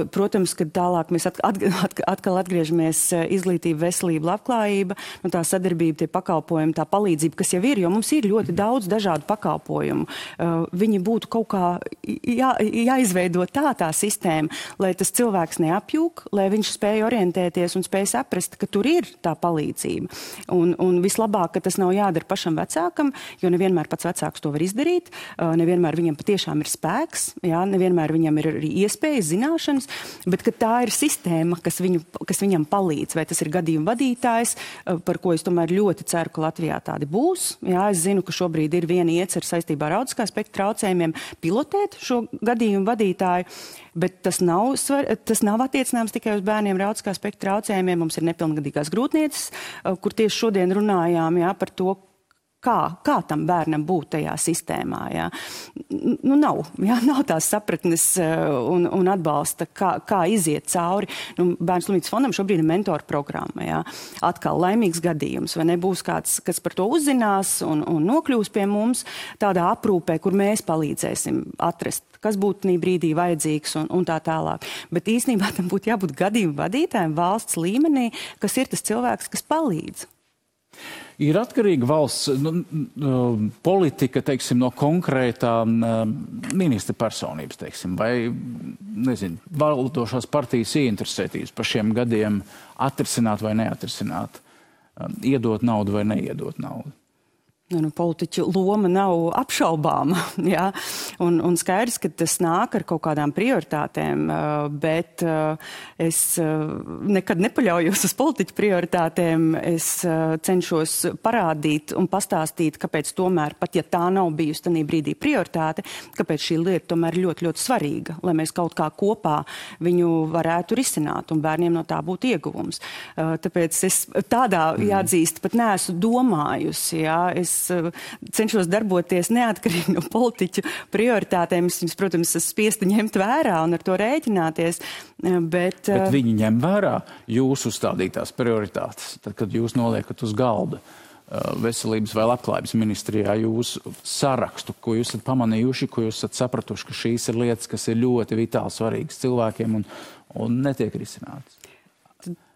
Protams, kad tālāk mēs atkal atgriežamies izglītība, veselība, labklājība, tā sadarbība, tie pakalpojumi, tā palīdzība, kas jau ir, jo mums ir ļoti daudz dažādu pakalpojumu. Viņi būtu kaut kā jāizveido tā sistēma, lai tas cilvēks neapjūk, lai viņš spēja orientēties un spēja saprast, ka tur ir tā palīdzība. Un vislabāk, ka tas nav jādara pašam vecākam, jo nevienmēr pats vecāks to var izdarīt, nevienmēr viņam patiešām ir spēks, nevienmēr viņam ir arī iespējas, zināšanas, bet ka tā ir sistēma, kas viņam palīdz, vai tas ir gadījuma vadītājs, par ko es tomēr ļoti ceru, ka Latvijā tādi būs. Jā, es zinu, ka šobrīd ir viena iecer saistībā ar autiskā spektra traucējumiem pilotēt šo gadījumu vadītāju, bet tas nav attiecināms tikai uz bērniem ar autiskā spektra traucējumiem. Mums ir nepilngadīgās grūtnieces, kur tieši šodien runājām par to, kā tam bērnam būt tajā sistēmā. Jā. Nav tās sapratnes un atbalsta, kā iziet cauri. Bērnu slimnīcas fondam šobrīd ir mentoru programma. Jā. Atkal laimīgs gadījums, vai nebūs kāds, kas par to uzzinās un nokļūs pie mums tādā aprūpē, kur mēs palīdzēsim atrast, kas būtu tajā brīdī vajadzīgs un tā tālāk. Bet īstenībā tam būtu jābūt gadījumu vadītājiem valsts līmenī, kas ir tas cilvēks, kas palīdz. Ir atkarīga valsts politika, teiksim, no konkrētā ministra personības, teiksim, vai, valdošās partijas ieinteresētības par šiem gadiem atrisināt vai neatrisināt, iedot naudu vai neiedot naudu. Politiķu loma nav apšaubāma, jā, un skaidrs, ka tas nāk ar kaut kādām prioritātēm, bet es nekad nepaļaujos uz politiķu prioritātēm, es cenšos parādīt un pastāstīt, kāpēc tomēr, pat ja tā nav bijusi tajā brīdī prioritāte, kāpēc šī lieta tomēr ļoti, ļoti svarīga, lai mēs kaut kā kopā viņu varētu risināt un bērniem no tā būtu ieguvums. Tāpēc es tādā jāatzīst, pat neesmu domājusi, jā, es cenšos darboties neatkarīgi no politiķu prioritātēm. Es viņus, protams, esmu spiesta ņemt vērā un ar to rēķināties. Bet viņi ņem vērā jūsu uzstādītās prioritātes, tad, kad jūs noliekat uz galda veselības vai labklājības ministrijā jūsu sarakstu, ko jūs esat pamanījuši, ko jūs esat sapratuši, ka šīs ir lietas, kas ir ļoti vitāli svarīgas cilvēkiem un netiek risinātas.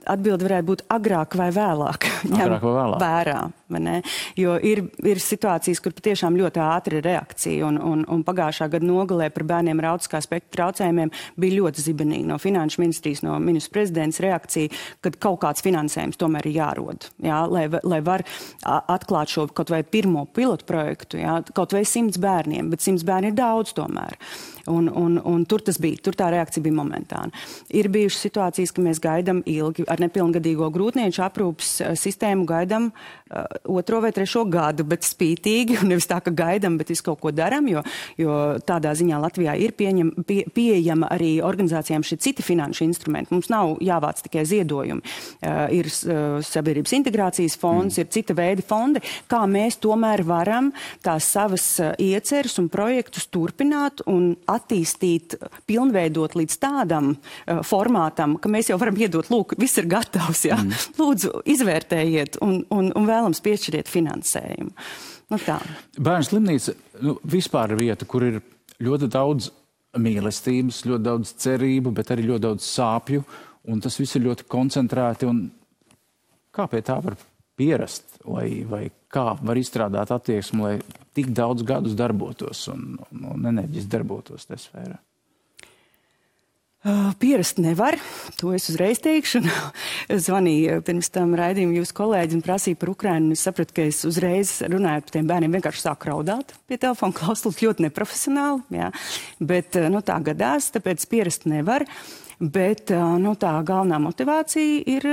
Atbilde varētu būt agrāk vai vēlāk. Vērā, vai ne? Jo ir situācijas, kur patiešām ļoti ātri ir reakcija, un pagājušā gada nogalē par bērniem ar autiskā spektra traucējumiem bija ļoti zibenīgi no finanšu ministrijas, no ministra prezidents reakcija, kad kaut kāds finansējums tomēr ir jārod, jā, lai var atklāt šo kaut vai pirmo pilotu projektu, jā, kaut vai 100 bērniem, bet 100 bērni ir daudz tomēr. Un tur tas bija, tur tā reakcija bija momentāna. Ir bijušas situācijas, ka mēs gaidām ilgi ar nepilngadīgo grūtnieču aprūpas sistēmu gaidām 2. vai 3. gadu, bet spītīgi, un nevis tā, ka gaidām, bet visu kaut ko daram, jo tādā ziņā Latvijā ir pieejama arī organizācijām šie citi finanšu instrumenti. Mums nav jāvāc tikai ziedojumi. Ir sabiedrības integrācijas fonds, ir cita veida fondi, kā mēs tomēr varam tās savas ieceres un projektus turpināt un attīstīt, pilnveidot līdz tādam formātam, ka mēs jau varam iedot, lūk, viss ir gatavs, jā. Lūdzu, izvērtējiet un vēlams piešķiriet finansējumu. Tā. Bērnu slimnīca vispār ir vieta, kur ir ļoti daudz mīlestības, ļoti daudz cerību, bet arī ļoti daudz sāpju, un tas viss ir ļoti koncentrēti. Un kā pie tā var pierast, vai kā var izstrādāt attieksmi, lai tik daudz gadus darbotos un enerģiski darbotos tajā sfērā? Pierast nevar, to es uzreiz teikšu. Zvanīju pirms tam raidījumu jūsu kolēģi un prasīja par Ukrainu. Es sapratu, ka es uzreiz runājot par tiem bērniem vienkārši sāku raudāt pie telefona klausulas, ļoti neprofesionāli. Jā. Bet tā gadās, tāpēc pierast nevar. Bet tā galvenā motivācija ir,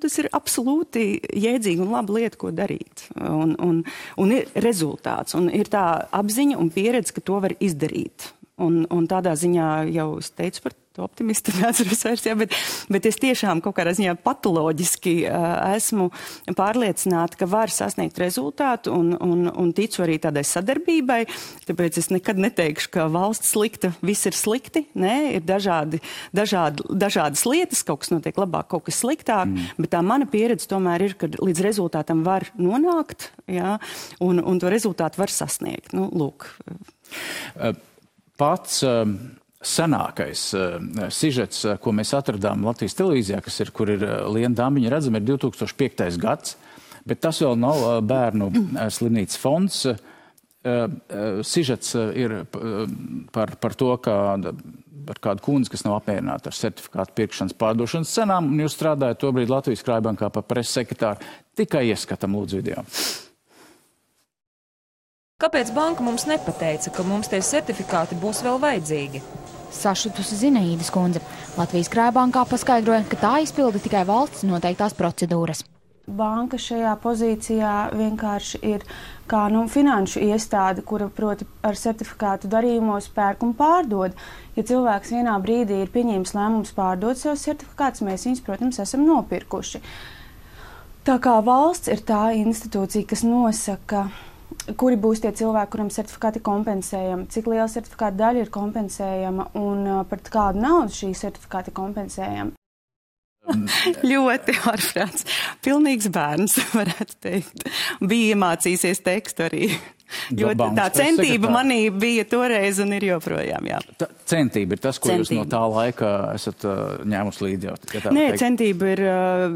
tas ir absolūti jēdzīga un laba lieta, ko darīt. Un ir rezultāts, un ir tā apziņa un pieredze, ka to var izdarīt. Un tādā ziņā jau es teicu par to optimistu, neatceros vairs, jā, bet es tiešām kaut kādā ziņā patoloģiski esmu pārliecināta, ka var sasniegt rezultātu un ticu arī tādai sadarbībai. Tāpēc es nekad neteikšu, ka valsts slikta, viss ir slikti. Nē, ir dažādas lietas, kaut kas notiek labāk, kaut kas sliktāk, bet tā mana pieredze tomēr ir, ka līdz rezultātam var nonākt, jā, un to rezultātu var sasniegt. Lūk. Pats senākais sižets, ko mēs atradām Latvijas televīzijā, kur ir Liena Dambiņa redzama, ir 2005. gads, bet tas vēl nav bērnu slimnīcas fonds. Sižets ir par to, par kādu kundzi, kas nav apmierināta ar certifikātu pirkšanas pārdošanas cenām, un jūs strādājat tobrīd Latvijas Krājbankā par preses sekretāru. Tikai ieskatam lūdzu video. Kāpēc banka mums nepateica, ka mums tie certifikāti būs vēl vajadzīgi? Sašutusi Zinaīdas kundze. Latvijas Krājbankā paskaidroja, ka tā izpilda tikai valsts noteiktās procedūras. Banka šajā pozīcijā vienkārši ir kā finanšu iestāde, kura proti ar certifikātu darījumos pērk un pārdod. Ja cilvēks vienā brīdī ir pieņēmis lēmums pārdot savus certifikātus, mēs viņus, protams, esam nopirkuši. Tā kā valsts ir tā institūcija, kas nosaka, kuri būs tie cilvēki, kuriem certifikāti kompensējami, cik liela certifikāta daļa ir kompensējama un par kādu naudu šī certifikāti kompensējama. Ļoti ārprāts. Pilnīgs bērns, varētu teikt. Bija iemācīsies tekstu arī. Tā centība manī bija toreiz un ir joprojām, jā. Centība ir tas, ko jūs no tā laika esat ņēmus līdzi jau? Nē, centība ir,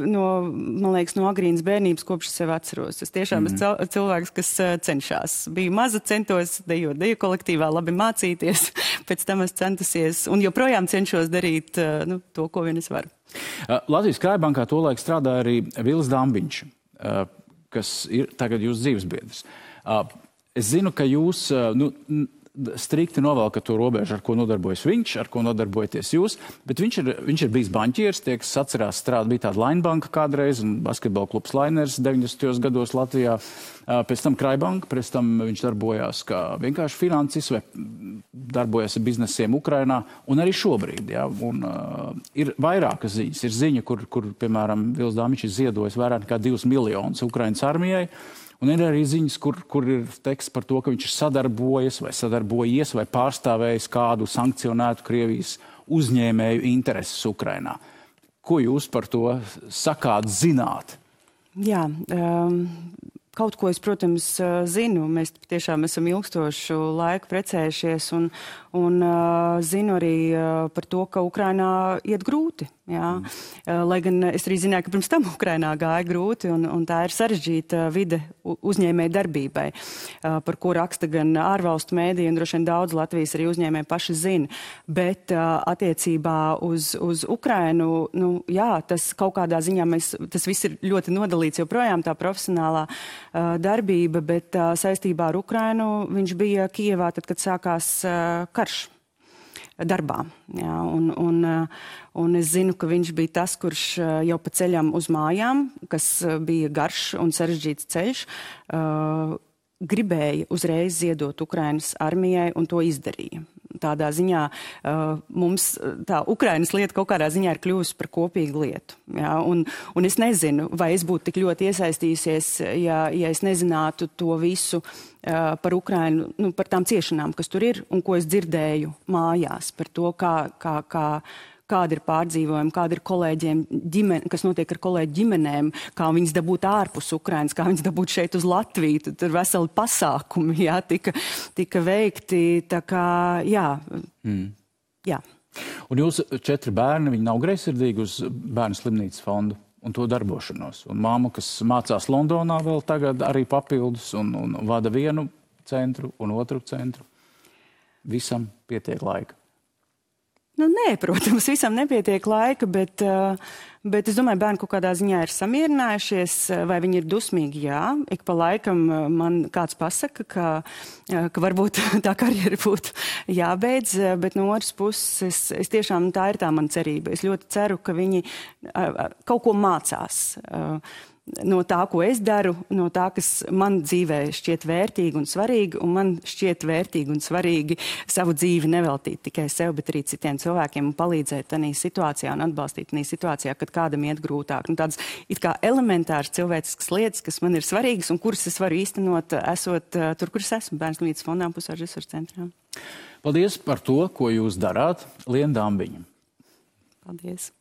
man liekas, no agrīnas bērnības, kopš sev atceros. Es tiešām esmu cilvēks, kas cenšas. Biju maza, centos dejot deju kolektīvā, labi mācīties. Pēc tam es centusies un joprojām cenšos darīt to, ko vien es varu. Latvijas Krājbankā tolaik strādāja arī Vils Dambiņš, kas ir tagad jūsu dzīvesbiedrs. Es zinu, ka jūs strikti novelkat to robežu, ar ko nodarbojas viņš, ar ko nodarbojaties jūs, bet viņš ir bijis banķieris, tie, kas atcerās bija tāda Lainbanka kādreiz, un basketbola klubs Lainers 90. gados Latvijā, pēc tam Krājbanka, pēc tam viņš darbojās kā vienkārši financis vai darbojas ar biznesiem Ukrainā, un arī šobrīd, jā, un ir vairākas ziņas. Ir ziņa, kur piemēram, Vils Dambiņš ir ziedojis vairāk nekā 2 miljonus Ukrainas armijai, un ir arī ziņas, kur ir teksts par to, ka viņš ir sadarbojies vai pārstāvējis kādu sankcionētu Krievijas uzņēmēju intereses Ukrainā. Ko jūs par to sakāt, zināt? Jā, kaut ko es, protams, zinu. Mēs tiešām esam ilgstošu laiku precējušies un zinu arī par to, ka Ukrainā iet grūti. Jā. Lai gan es arī zināju, ka pirms tam Ukrainā gāja grūti un tā ir sarežģīta vide uzņēmēju darbībai, par ko raksta gan ārvalstu mēdī un droši vien daudz Latvijas arī uzņēmēji paši zina. Bet attiecībā uz Ukrainu, jā, tas kaut kādā ziņā tas viss ir ļoti nodalīts joprojām tā profesionālā darbība, bet saistībā ar Ukrainu viņš bija Kijevā tad, kad sākās karš darbā. Jā, un es zinu, ka viņš bija tas, kurš jau pa ceļam uz mājām, kas bija garš un sarežģīts ceļš, gribēja uzreiz ziedot Ukrainas armijai un to izdarīja. Tādā ziņā mums tā Ukrainas lieta kaut kādā ziņā ir kļuvusi par kopīgu lietu. Jā, un es nezinu, vai es būtu tik ļoti iesaistījusies, ja es nezinātu to visu par Ukrainu, par tām ciešanām, kas tur ir un ko es dzirdēju mājās, par to, kāda ir pārdzīvojuma, kāda ir kolēģiem kas notiek ar kolēģu ģimenēm, kā viņas dabūt ārpus Ukrainas, kā viņas dabūt šeit uz Latviju. Tur veseli pasākumi, jā, tika veikti. Tā kā, jā. Jā. Un jūs 4 bērni, viņi nav greizsirdīgi uz bērnu slimnīcas fondu un to darbošanos. Un māma, kas mācās Londonā vēl tagad arī papildus un vada vienu centru un otru centru. Visam pietiek laika. Nu, nē, protams, visam nepietiek laika, bet es domāju, bērni kaut kādā ziņā ir samierinājušies, vai viņi ir dusmīgi, jā. Ik pa laikam man kāds pasaka, ka varbūt tā karjera būtu jābeidz, bet no otras puses, es tiešām, tā ir tā mana cerība. Es ļoti ceru, ka viņi kaut ko mācās no tā, ko es daru, no tā, kas man dzīvē šķiet vērtīgi un svarīgi, un man šķiet vērtīgi un svarīgi savu dzīvi neveltīt tikai sev, bet arī citiem cilvēkiem un palīdzēt tādā situācijā un atbalstīt tādā situācijā, kad kādam iet grūtāk. Un tādas it kā elementāras cilvēciskas lietas, kas man ir svarīgas un kuras es varu īstenot, esot tur, kur es esmu, Bērnu slimnīcas fondā un Pusauģu resursu centrā. Paldies par to, ko jūs darāt, Liena Dambiņa. Paldies.